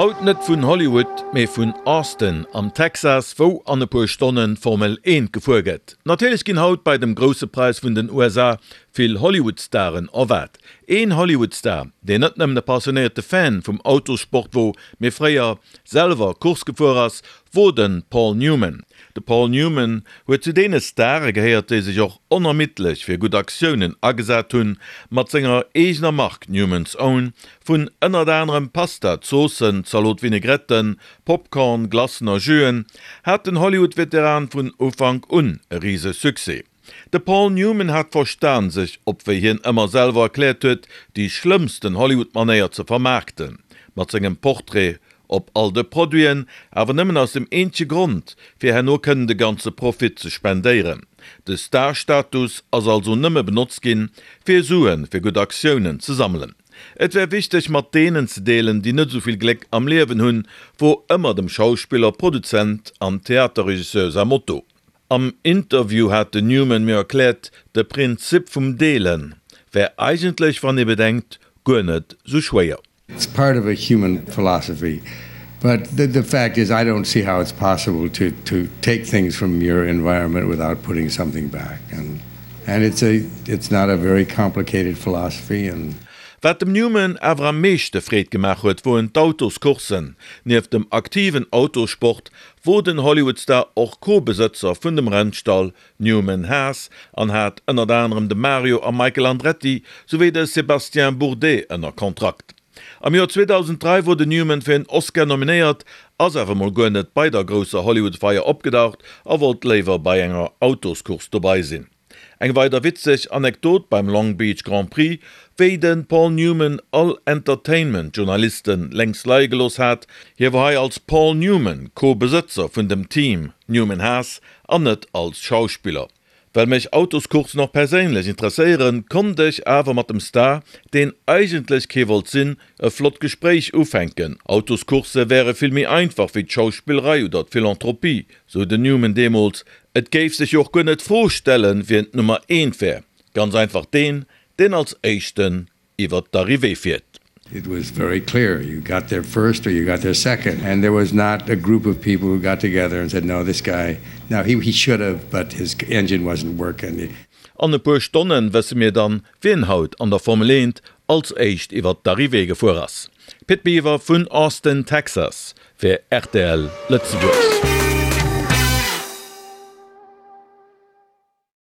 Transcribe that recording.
Haut net vun Hollywood, mee vun Austin am Texas, wou an e puer Stonnen d'Formel 1 gefuer gëtt. Natierlech ginn haut bei dem Grousse Präis vun den USA vill Hollywood-Staren erwaart. Een Hollywood-Star, deen net nëmmen e passionéierte Fan vum Autossport wor, mee fréier selwer Course gefuer ass, wor de Paul Newman. De Paul Newman huet zu deene Stare gehéiert, déi sech och onermiddlech fir gutt Aktiounen agesat hunn. Mat senger eegener Mark Newman's Own vun ënnert anerem Pasta, Zoossen, Zalot-Vinaigretten, Popcorn, Glacen a Juen hat den Hollywood-Veteran vun Ufank un e rise Succès. De Paul Newman hat verstan, sech op, wéi hien ëmmer selwer erkläert huet, déi schlëmmsten Hollywood-Manéier ze vermaarkten, mat sengem Portrait op all de Produiten, awer nëmmen aus dem eenzege Grond, fir herno kënnen de ganze Profit ze spendéieren. De Star-Status ass also nëmme benotzt ginn, fir Sue fir gutt Aktiounen ze sammelen. Et wär wichteg, mat deenen ze deelen, déi net esou vill Gléck am Liewen hunn, wor ëmmer dem Schauspiller, Produzent an Theaterregisseur säi Motto. Am Interview hat den Newman mir erkläert, de Prinzip vum Deelen wär eigentlech, wann ee bedenkt, guer net sou schwéier. It's part of a human philosophy, but the the fact is I don't see how it's possible to to take things from your environment without putting something back and and it's a it's not a very complicated philosophy and. Wat dem Newman awer am meeschte Freed gemaach huet, woen d'Autoscourssen. Nieft dem aktiven Autossport wor den Hollywood-Star och Co-Besëtzer vun dem Rennstall Newman Haas an hat ënnert anerem de Mario a Michael Andretti souwéi de Sébastien Bourdais ënner Kontrakt. Am Joer 2003 wor den Newman fir en Oscar nominéiert, ass awer mol guer net bei der grousser Hollywood-Feier opgedaucht a wollt léiwer bei enger Autoscourse dobei sinn. Eng weider witzeg Anekdot beim Long Beach Grand Prix, wéi de Paul Newman all Entertainment-Journalisten lénks leie gelooss hat, hie wor hei als Paul Newman Co-Besëtzer vun dem Team Newman Haas an net als Schauspiller. Well mech Autoscoursen och perséinlech interesséieren, konnt ech awer mat dem Star, deen eigentlech kee wollt sinn, e flott Gespréich ufänken. Autoscourse wäre vill méi einfach wéi d'Schauspillerei oder d'Philanthropie, sou den Newman deemools. Et géif sech jo och guer net d'Fro stellen, wien d'Nummer eent wär, ganz einfach deen, deen als éischten iwwer d'Arrivée fiert. It was very clear, you got there first or you got there second and there was not a group of people who got together and said no this guy, no he he should have but his engine wasn't working. An e puer Stonnen wësse mir dann, wien haut an der Formel 1 als éischt iwwer d'Arrivée gefuer ass. Pit Biwer vun Austin, Texas fir rtl Lëtzebuerg.